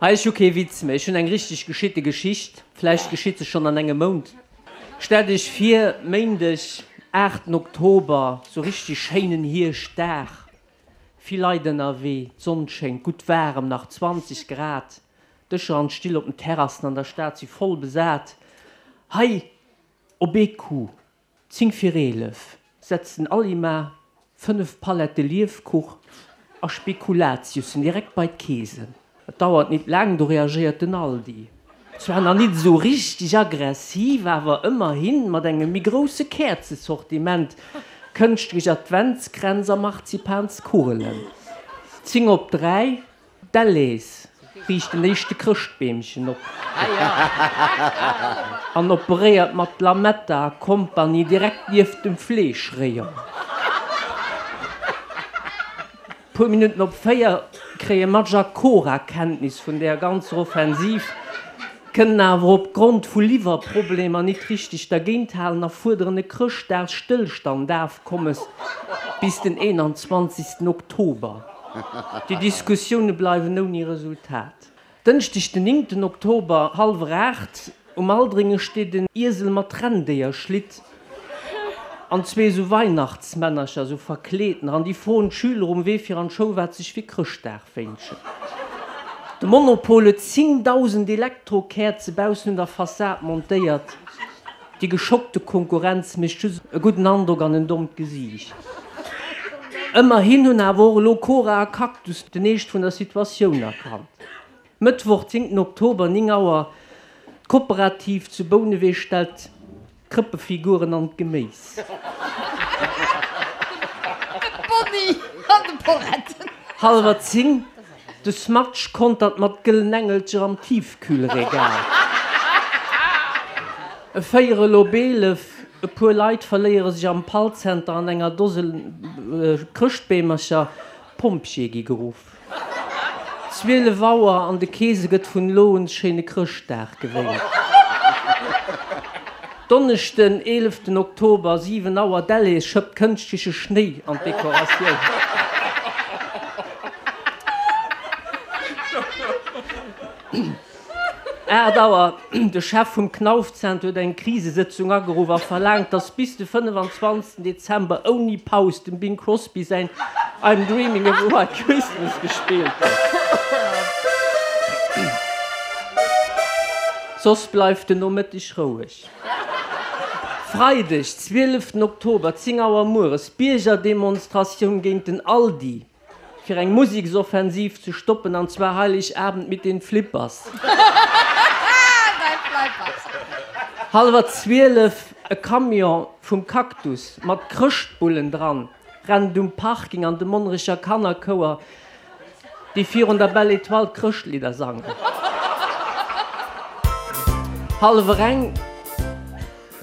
Hei, ech hu kee Witz méi, ech hunn eng richteg geschitte Geschicht. Vläicht geschitt se schonn an engem Mount. Stellt iech vir, Méindeg, aachten Oktober, sou richteg schéinen Hierschtdag, vill Leit ënnerwee, d'Sonn schéngt, gutt waarem, nach 20 Grad, d'Dëscher an d'Still op den Terrassen an der Stad si voll besat. Hei op ee Coup 10 vir 11 setzt den Alima 5 Palette Liefkuch a Spekulatiussen direkt bei d'Keesen. Et dauert nit laang, do reagéiert den Aldi. Zwar nach nit esou richteg aggressiv, awer ëmmerhin mat engem méi grousse Käerzesortiment, kënschtlech Adventskränz a Marzipanskugelen. 10 op 3 D'Delhaize riicht den éischte Chrëschtbeemchen op an operéiert mat Lametta a Kompanie direkt nieft dem Fleeschrayon. Puer Minutten op 4 kréie Madge a Cora Kenntnis vun där ganzer Offensiv, kënnen awer op Grond vu Liwwerproblemer nit richteg dergéint halen a fuerderen e Chrëschtdagsstëllstandafkommes bis den 21 Oktober. Déi Diskussioune bleiwen ouni Resultat. Dënschdeg den néngten Oktober, hallwer 8, um Aldringen steet en Iesel mat Renndéierschlitt an zwee esou Weihnachtsmännercher, esou verkleedener, an déi froen d'Schüler um Wee fir an d'Schoul, wat sech fir Chrëschtdag wénschen. De Monopol huet 10.000 Elektrokäerze baussen un der Fassad montéiert. Déi geschockte Konkurrenz mécht just e gudden Androck an en dommt Gesiicht. Ëmmerhin hunn awer och elo Cora a Cactus den Eescht vun der Situatioun erkannt. Mëttwoch, 10 Oktober, 9 Auer, D'Kooperativ zu Bouneweg stellt d'Krëppefiguren an d'Geméis. De Bonni an de Poretten. Hallwer 10, De Smatsch kontert mat gëllen Engelcher am Tiefkühlregal. E Véierel op 11, E puer Leit verléiere sech am Pallzenter an enger Dose Chrëschtbeemercher. D'Pompjeeë gi geruff. 12 Auer, An de Keese gëtt vun elo un Schéine Chrëschtdag gewéilt. Donneschden, 11 Oktober, 7 Auer, Delhaize schëppt kënschtleche Schnéi an d'Dekoratioun. Aacht Auer, De Chef vum Knauf-Zenter huet eng Krisesëtzung ageruff a verlaangt, datt bis de 25 Dezember ouni Paus dem Bing Crosby säin I'm Dreaming of a White Christmas gespillt gëtt. Soss bleift den Nomëtteg roueg. Freideg, 12 Oktober, 10 Auer mueres, Biergerdemonstratioun géint den Aldi, fir eng Museksoffensiv ze stoppen, an zwar Heiligabend mit den Flippers. Hallwer 12, E Camion vum Cactus mat Chrëschtbullen dran rennt um Parking an de Monnerecher Kannerchouer, déi virun der Belle Etoile d'Chrëschtlidder sangen. Hallwer eng,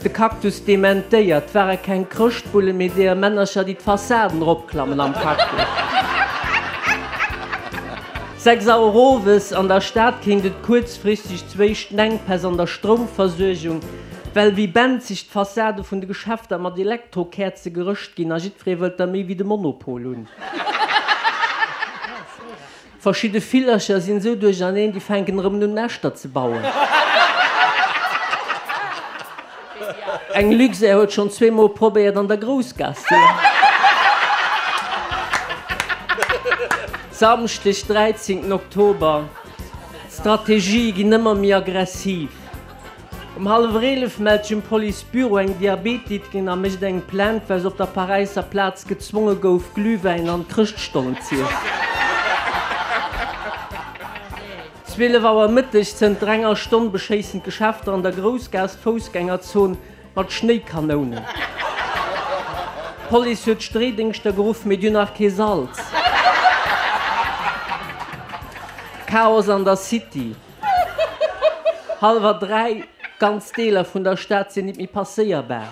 De Cactus dementéiert, 't ware keng Chrëschtbullen, mee deeër Männercher, déi d'Fassaden eropklammen am Cactus. 6 Auer owes, An der Stad kéint et kuerzfristeg zu éischten Enkpäss an der Stroumversuergung, well wéi benzeg d'Fassade vun de Geschäfter mat Elektrokäerze gerëscht ginn a jiddweree wëllt der méi wéi de Monopol hunn. Verschidde Villercher sinn esou duercherneen, déi fänken erëm un Näschter ze bauen. Eng Luxair huet schonn zweemol probéiert an der Groussgaass ze landen. Samschdeg 13 Oktober, D'Strategië ginn ëmmer méi aggressiv. Um hallwer 11 mellt sech um Police-Büro eng Diabetikerin a mécht eng Plainte, well se op der Paräisser Plaz gezwonge gouf, Glühwäin an Chrëschtstollen z'iessen. 12 Auer Mëtteg, Zënter enger Stonn beschéissen d'Geschäfter an der Groussgaass d'Foussgängerzon mat Schnéikanounen. D'Police huet d'Streedéngschter geruff, mee déi hunn nach kee Salz. Chaos an der City. Hallwer 3, Ganz Deeler vun der Stad sinn nit méi passéierbar.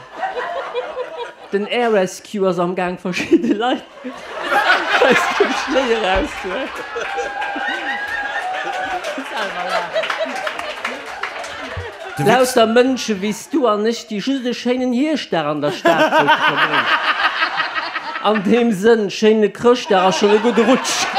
Den Air Rescue ass am Gaang verschidde Leit aus dem Schnéi erauszehuelen. Lauter Mënsche wéi s du an ech, déi just e schéinen Hierschtdag an der Stad wëllte verbréngen. An deem Sënn, schéine Chrëschtdag a schonn e gudde Rutsch!